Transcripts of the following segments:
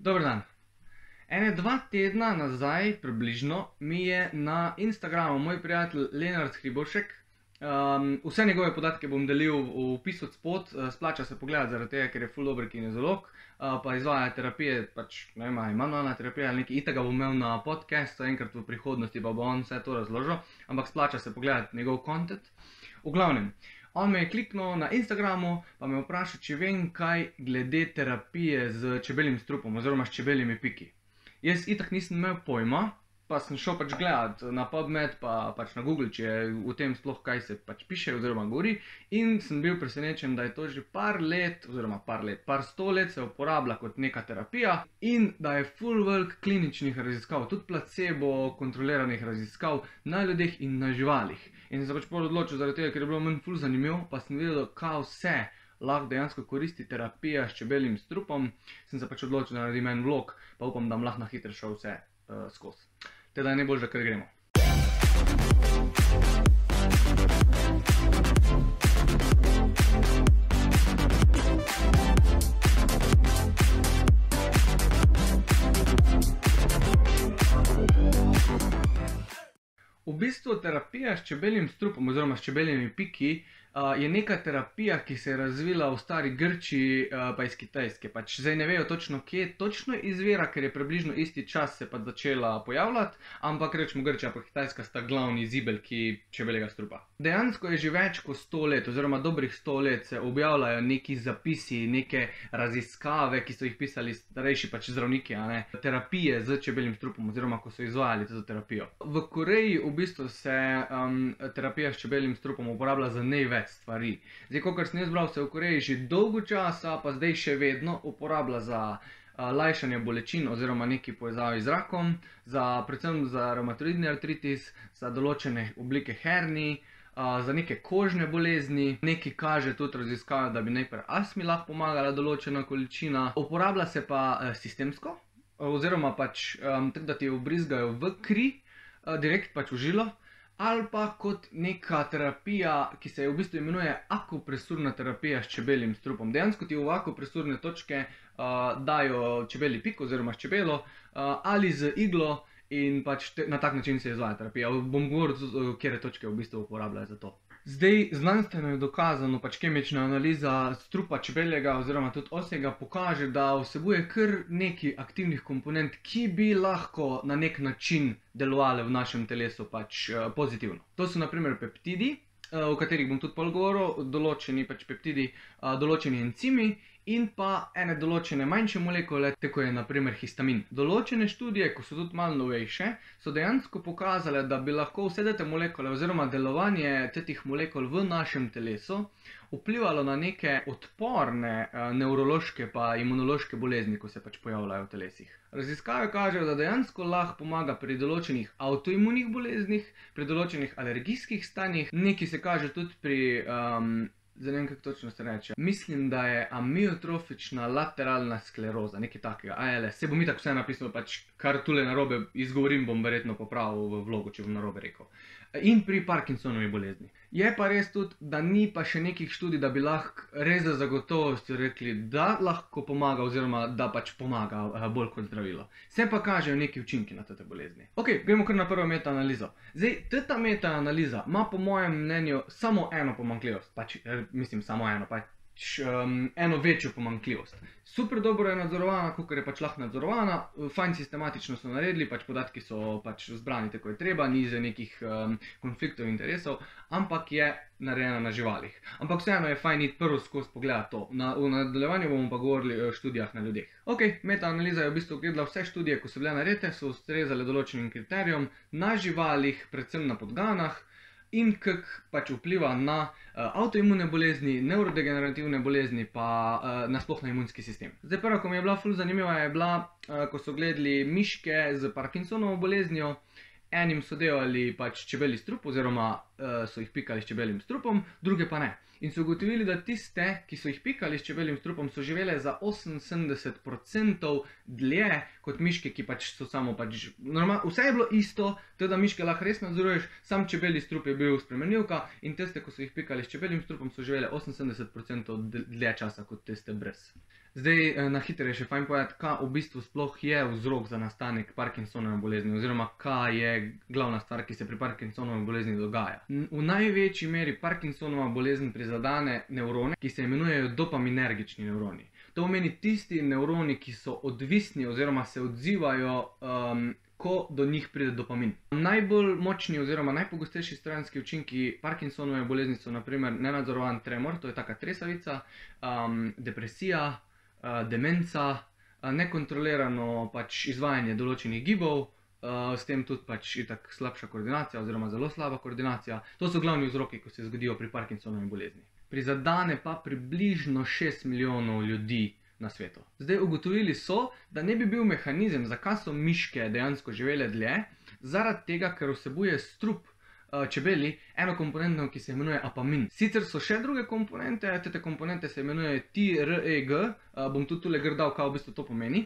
Dober dan. Ene 2 tedna nazaj približno mi je na Instagramu moj prijatelj Lenart Hribošek, vse njegove podatke bom delil v opisu spod, splača se pogledati zaradi tega, ker je ful dober kinezolog, pa izvaja terapije, pač ne vem, manualna terapija ali nekaj, itak ga bom imel na podcastu, enkrat v prihodnosti pa bo on vse to razložil, ampak splača se pogledati njegov content. V glavnem, on me je kliknil na Instagramu, pa me vprašal, če vem kaj glede terapije z čebeljim strupom oziroma s čebeljimi piki. Jaz itak nisem imel pojma, pa sem šel pač gledat na PubMed pa pač na Google, če je v tem sploh kaj se pač piše oziroma govori, in sem bil presenečen, da je to že par sto let se uporablja kot neka terapija in da je ful velik kliničnih raziskav, tudi placebo kontroliranih raziskav na ljudeh in na živalih. In sem se pač pol odločil zaradi tega, ker je bilo meni ful zanimivo, pa sem videl, kaj vse lahko dejansko koristi terapija s čebeljim strupom, sem se pač odločil, da naredim en vlog, pa upam, da bom lahko na hitro šel vse skozi. Teda je najboljše, kar gremo. V bistvu terapija s čebeljim strupom oziroma s čebeljimi piki je neka terapija, ki se je razvila v stari Grčiji pa iz Kitajske. Pač zdaj ne vejo točno, kje točno izvira, ker je približno isti čas se pač začela pojavljati, ampak rečemo Grčija pa Kitajska sta glavni zibelki čebeljega strupa. Dejansko je že več kot 100 let oziroma dobrih 100 let se objavljajo neki zapisi, neke raziskave, ki so jih pisali starejši pač zdravniki, terapije z čebeljim strupom oziroma ko so izvajali to terapijo. V Koreji v bistvu se terapija s čebeljim strupom uporablja za največ stvari. Zdaj, kakor sem jaz bral, se v Koreji že dolgo časa, pa zdaj še vedno uporablja za lajšanje bolečin oziroma neki povezavi z rakom, predvsem za revmatoidni artritis, za določene oblike hernij, za neke kožne bolezni, neki kaže tudi raziskave, da bi najprej astmi lahko pomagala določena količina. Uporablja se pa sistemsko, oziroma pač tako, da ti vbrizgajo v kri, direkt pač v žilo, ali pa kot neka terapija, ki se v bistvu imenuje akupresurna terapija s čebeljim strupom. Dejansko ti v akupresurne točke dajo čebelji pik oziroma s čebelo ali z iglo in pač na tak način se izvaja terapija. Bom govoril, kje točke v bistvu uporabljajo za to. Zdaj, znanstveno je dokazano, pač kemična analiza strupa čebeljega oziroma tudi osjega pokaže, da vsebuje kar nekaj aktivnih komponent, ki bi lahko na nek način delovale v našem telesu pač pozitivno. To so na primer peptidi, o katerih bom tudi pol govoril, določeni pač peptidi, določeni encimi in pa ene določene manjše molekule, tako je na primer histamin. Določene študije, ko so tudi malo novejše, so dejansko pokazale, da bi lahko vse te molekule oziroma delovanje teh molekul v našem telesu vplivalo na neke odporne nevrološke pa imunološke bolezni, ko se pač pojavljajo v telesih. Raziskave kažejo, da dejansko lahko pomaga pri določenih avtoimunih boleznih, pri določenih alergijskih stanjih, nekaj se kaže tudi pri zdaj ne vem, kako točno se reče. Mislim, da je amiotrofična lateralna skleroza, nekaj takega, ALS. Se bom itak vse napisal, pač kar tule narobe izgovorim, bom verjetno popravil v vlogu, če bom narobe rekel. In pri Parkinsonovi bolezni. Je pa res tudi, da ni pa še nekih študij, da bi lahko res za zagotovostjo rekli, da lahko pomaga oziroma da pač pomaga bolj kot zdravilo. Se pa kažejo neki učinki na te bolezni. Ok, gremo kar na prvo metaanalizo. Zdaj, ta metaanaliza ima po mojem mnenju samo eno pomanjkljivost, pač mislim samo eno, pač eno večjo pomanjkljivost. Super dobro je nadzorovana, kakor je pač lahko nadzorovana, fajn sistematično so naredili, pač podatki so pač zbrani tako je treba, ni za nekih konfliktov interesov, ampak je narejena na živalih. Ampak vseeno je fajn iti prvo skozi pogledati to. V nadaljevanju bomo pa govorili o študijah na ljudeh. Ok, metaanaliza je v bistvu gledala vse študije, ko so bile narejene, so ustrezale določenim kriterijem na živalih, predvsem na podganah, in kako pač vpliva na avtoimune bolezni, nevrodegenerativne bolezni pa nasploh na imunski sistem. Zdaj prva, ko mi je bila ful zanimiva, je bila, ko so gledali miške z Parkinsonovo boleznijo, enim so delali pač čebelji strup oziroma so jih pikali s čebeljim strupom, druge pa ne. In so ugotovili, da tiste, ki so jih pikali s čebeljim strupom, so živele za 78% dlje kot miške, ki pač so samo pač normalno. Vse je bilo isto, teda miške lahko res nadzoruješ, sam čebelji strup je bil spremenljivka in tiste, ko so jih pikali s čebeljim strupom, so živele 78% dlje časa kot tiste brez. Zdaj, na hitro je še fajn povedati, kaj v bistvu sploh je vzrok za nastanek Parkinsonove bolezni, oziroma kaj je glavna stvar, ki se pri Parkinsonovi bolezni dogaja. V največji meri Parkinsonova bolezen prizadene nevrone, ki se imenujejo dopaminergični nevroni. To pomeni tisti nevroni, ki so odvisni oziroma se odzivajo, ko do njih pride dopamin. Najbolj močni oziroma najpogostejši stranski učinki Parkinsonove bolezni so na primer nenadzorovan tremor, to je taka tresavica, depresija, demenca, nekontrolirano pač izvajanje določenih gibov, s tem tudi pač itak slabša koordinacija oziroma zelo slaba koordinacija. To so glavni vzroki, ko se zgodijo pri Parkinsonovi bolezni. Prizadene pa približno 6 milijonov ljudi na svetu. Zdaj, ugotovili so, da ne bi bil mehanizem, zakaj so miške dejansko živele dlje, zaradi tega, ker vsebuje strup čebeli eno komponento, ki se imenuje apamin. Sicer so še druge komponente, te komponente se imenujejo TREG, bom tudi tule grdal, kaj v bistvu to pomeni.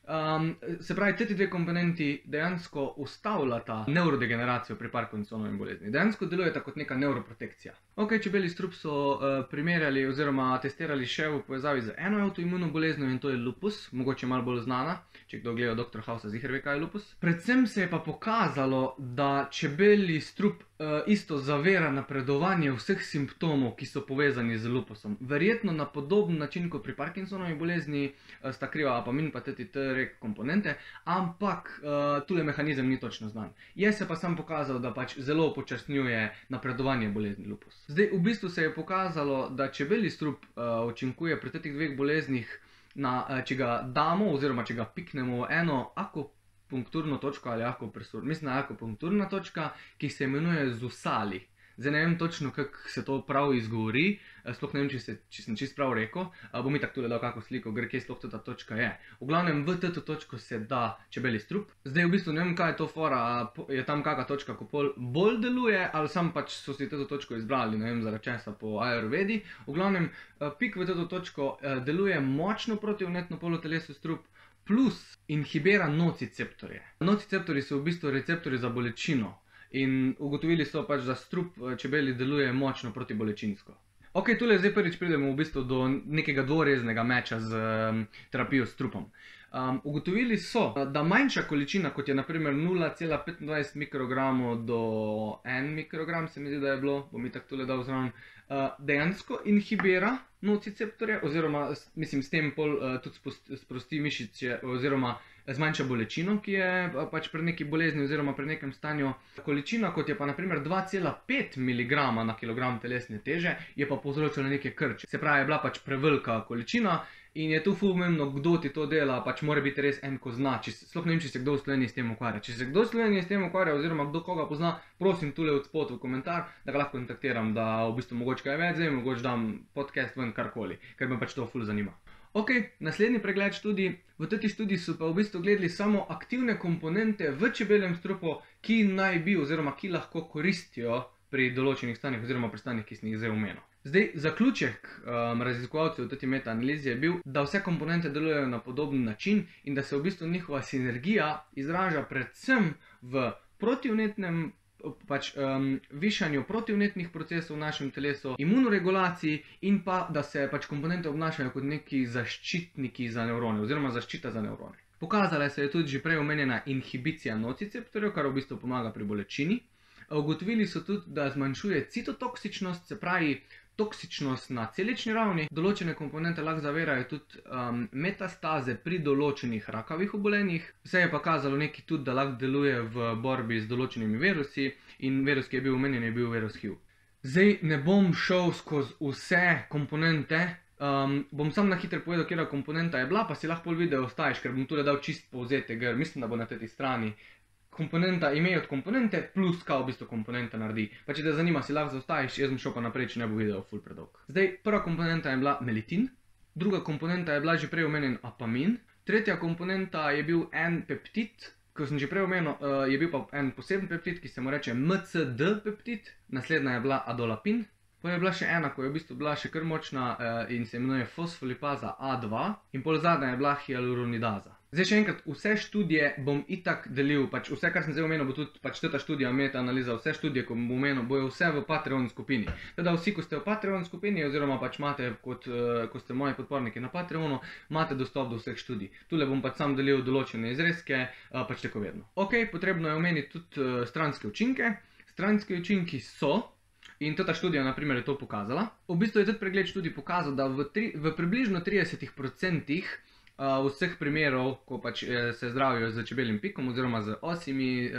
Se pravi, te dve komponenti dejansko ustavljata nevrodegeneracijo pri Parkinsonovi bolezni. Dejansko delujeta kot neka nevroprotekcija. Ok, čebelji strup so primerjali oziroma testirali še v povezavi z eno avtoimuno boleznijo in to je lupus, mogoče malo bolj znana, če kdo gleda Dr. Housa, ziher ve, kaj je lupus. Predvsem se je pa pokazalo, da čebelji strup isto zavira napredovanje vseh simptomov, ki so povezani z lupusom. Verjetno na podoben način kot pri Parkinsonovi bolezni sta kriva apamin pa TREG komponente, ampak tule mehanizem ni točno znan. Je se pa sam pokazal, da pač zelo upočasnjuje napredovanje bolezni lupus. Zdaj, v bistvu se je pokazalo, da čebelji strup učinkuje pri teh dveh boleznih, če ga damo oziroma če ga piknemo v eno akupunkturno točko ali akupresur, mislim na akupunkturna točka, ki se imenuje zusali. Zdaj ne vem točno, kako se to prav izgovori, sploh ne vem, če sem čisto prav rekel, bom itak tule dal kako sliko, gre kje sploh ta točka je. V glavnem, v to točko se da čebelji strup. Zdaj v bistvu ne vem, kaj je to fora, je tam kakšna točka, ko bolj deluje, ali sam pač so si to točko izbrali, ne vem, zaradi česa po Ayurvedi. V glavnem, pik v to točko deluje močno proti vnetno polotelesu strup, plus inhibira nociceptorje. Nociceptorji so v bistvu receptorji za bolečino. In ugotovili so pač, da strup čebeli deluje močno protibolečinsko. Ok, tule zdaj prvič pridemo v bistvu do nekega dvoreznega meča z terapijo s strupom. Ugotovili so, da manjša količina, kot je naprimer 0,25 mikrogramov do 1 mikrogram, se mi zdi, da je bilo, bom itak tule dal zraven, dejansko inhibira nociceptorje, oziroma mislim, s tem pol tudi sprosti mišice, oziroma zmanjša bolečino, ki je pač pri neki bolezni oziroma pri nekem stanju. Količina, kot je pa naprimer 2,5 mg na kilogram telesne teže, je pa povzročila neke krče. Se pravi, je bila pač prevelika količina in je tu ful pomembno, kdo ti to dela, pač mora biti res en, ko zna. Sploh ne vem, če se kdo v Sloveniji s tem ukvarja. Če se kdo v Sloveniji s tem ukvarja oziroma kdo koga pozna, prosim tule od spod v komentar, da ga lahko kontaktiram, da v bistvu mogoče kaj več, zdaj mogoče dam podcast ven karkoli, ker me pač to ful zanima. Ok, naslednji pregled študij. V tej študiji so pa v bistvu gledali samo aktivne komponente v čebeljem strupu, ki naj bi oziroma ki lahko koristijo pri določenih stanjih oziroma pri stanjih, ki sem jih zdaj omenil. Zdaj, zaključek raziskovalcev v tej metaanalizi je bil, da vse komponente delujejo na podoben način in da se v bistvu njihova sinergija izraža predvsem v protivnetnem višanju protivnetnih procesov v našem telesu, imunoregulaciji in pa, da se pač komponente obnašajo kot neki zaščitniki za nevrone oziroma zaščita za nevrone. Pokazala se je tudi že prej omenjena inhibicija nociceptorjev, kar v bistvu pomaga pri bolečini. Ugotovili so tudi, da zmanjšuje citotoksičnost, se pravi toksičnost na celični ravni. Določene komponente lahko zavirajo tudi metastaze pri določenih rakavih obolenjih. Se je pa kazalo nekaj tudi, da lahko deluje v borbi z določenimi virusi in virus, ki je bil omenjen, je bil virus HIV. Zdaj ne bom šel skozi vse komponente, bom sam na hitro povedal, katera komponenta je bila, pa si lahko pol video ostaviš, ker bom tule dal čist povzetek, mislim, da bo na tej strani. Komponenta, ime od komponente, plus kaj v bistvu komponenta naredi. Pa če te zanima, si lahko zaostaviš, jaz bom šel pa naprej, če ne bo video ful predolg. Zdaj, prva komponenta je bila melitin, druga komponenta je bila že prej omenjen apamin, tretja komponenta je bil en peptid, ko sem že prej omenil, je bil pa en poseben peptid, ki se mu reče MCD peptid, naslednja je bila adolapin, pa je bila še ena, ko je v bistvu bila še kar močna in se imenuje fosfolipaza A2 in pol zadnja je bila hialuronidaza. Zdaj še enkrat, vse študije bom itak delil, pač vse, kar sem zdaj omenil, bo tudi pač ta študija, meta-analiza, vse študije, ko bom omenil, bojo vse v Patreon skupini. Teda vsi, ko ste v Patreon skupini, oziroma pač imate, ko ste moji podporniki na Patreonu, imate dostop do vseh študij. Tule bom pač sam delil določene izrezke, pač tako vedno. Ok, potrebno je omeniti tudi stranske učinke. Stranski učinki so, in ta študija naprimer je to pokazala, v bistvu je tudi pregled študij pokazal, da v približno 30% vseh primerov, ko pač se zdravijo z čebeljim pikom oziroma z osjimi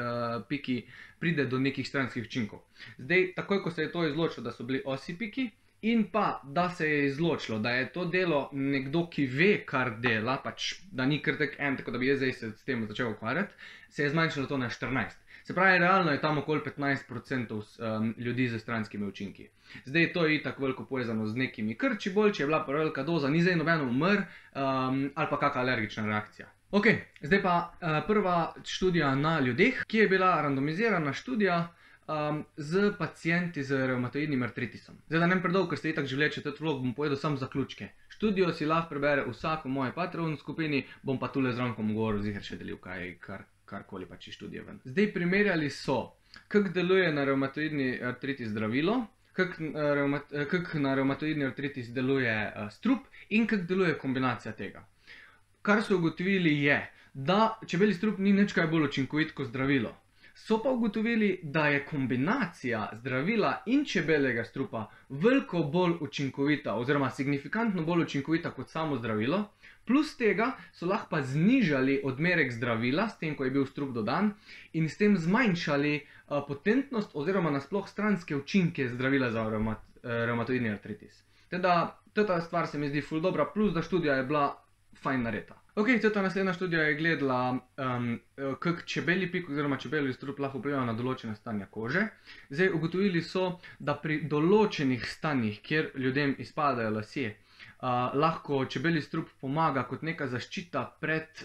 piki, pride do nekih stranskih učinkov. Zdaj, takoj ko se je to izločilo, da so bili osji piki, in pa, da se je izločilo, da je to delo nekdo, ki ve, kar dela, pač, da ni kar tako da bi jaz zdaj se s tem začel ukvarjati, se je zmanjšalo to na 14. Se pravi, realno je tam okoli 15% ljudi z stranskimi učinki. Zdaj, to je itak veliko povezano z nekimi krči bolj, če je bila velika doza, ni zdaj nobeno umr ali pa kakšna alergična reakcija. Ok, zdaj pa prva študija na ljudeh, ki je bila randomizirana študija z pacienti z revmatoidnim artritisom. Zdaj, da ne predolgo, ker ste itak že vleče tudi vlog, bom povedal samo zaključke. Študijo si lahko prebere vsak v moji Patreon skupini, bom pa tule zraven govoril, ziher še delil karkoli pač iz študije ven. Zdaj, primerjali so, kako deluje na revmatoidni artritis zdravilo, kako na revmatoidni artritis deluje strup in kako deluje kombinacija tega. Kar so ugotovili je, da čebelji strup ni nič kaj bolj učinkovit kot zdravilo. So pa ugotovili, da je kombinacija zdravila in čebeljega strupa veliko bolj učinkovita oziroma signifikantno bolj učinkovita kot samo zdravilo. Plus tega so lahko pa znižali odmerek zdravila, s tem, ko je bil strup dodan, in s tem zmanjšali potentnost oziroma nasploh stranske učinke zdravila za revmatoidni artritis. Teda, ta stvar se mi zdi ful dobra, plus da študija je bila fajn narejena. Ok, ta naslednja študija je gledala, kako čebelji pik oziroma čebelji strup lahko vpliva na določene stanja kože. Zdaj, ugotovili so, da pri določenih stanjih, kjer ljudem izpadajo lasje, lahko čebelji strup pomaga kot neka zaščita pred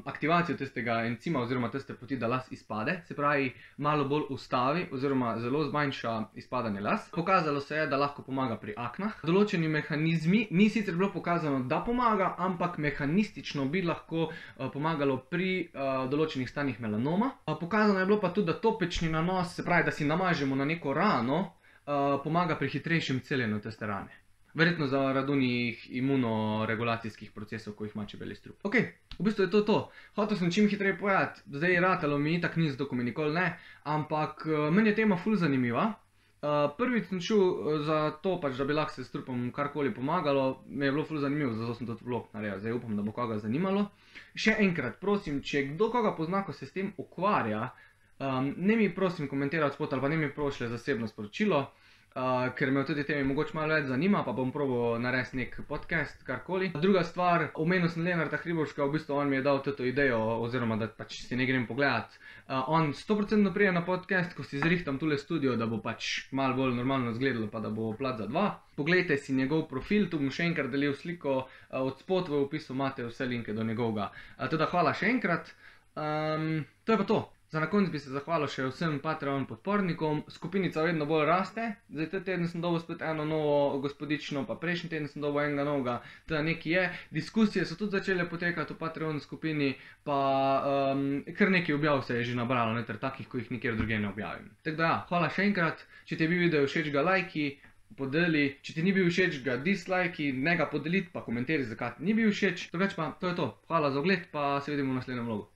aktivacijo tistega encima oziroma tiste poti, da las izpade. Se pravi, malo bolj ustavi oziroma zelo zmanjša izpadanje las. Pokazalo se je, da lahko pomaga pri aknah. Določeni mehanizmi, ni sicer bilo pokazano, da pomaga, ampak mehanistično bi lahko pomagalo pri določenih stanjih melanoma. Pokazano je bilo pa tudi, da topečni nanos, se pravi, da si namažemo na neko rano, pomaga pri hitrejšem celjenju tiste rane. Verjetno zaradi unih imunoregulacijskih procesov, ko jih ima čebelji strup. Ok, v bistvu je to. Hotel sem čim hitreje povedati, zdaj ratalo mi itak ni, zato mi nikoli ne, ampak meni je tema ful zanimiva. Prvič sem šel za to, pač, da bi lahko se strupom karkoli pomagalo, mi je bilo ful zanimivo, zato sem tudi vlog naredil, zdaj upam, da bo koga zanimalo. Še enkrat, prosim, če kdo koga pozna, ko se s tem ukvarja, ne mi prosim komentirati spod ali pa ne mi prošle zasebno sporočilo, ker me v tudi temi mogoče malo več zanima, pa bom probal narediti nek podcast, karkoli. Druga stvar, omenil sem Lenarta Hriboška, v bistvu on mi je dal to idejo, oziroma da pač si ne grem pogledat. On 100% prije na podcast, ko si zrihtam tule studio, da bo pač malo bolj normalno izgledalo, pa da bo plat za dva. Poglejte si njegov profil, tu bom še enkrat delil sliko, od spod v opisu imate vse linke do njegovega. Teda hvala še enkrat, to je pa to. Za na konec bi se zahvalil še vsem Patreon podpornikom, skupinica vedno bolj raste, zdaj ta teden sem dobil spet eno novo gospodično, pa prejšnji teden sem dobil enega novega, teda nekaj je, diskusije so tudi začele potekati v Patreon skupini, pa kar nekaj objav se je že nabralo, ter takih, ko jih nikjer drugje ne objavim. Tako da ja, hvala še enkrat, če ti je bil video všeč ga lajki, podeli, če ti ni bil všeč ga dislajki, ne ga podeliti, pa komentiraj zakaj ti ni bil všeč, drugače pa to je to, hvala za ogled, pa se vidimo v naslednjem vlogu.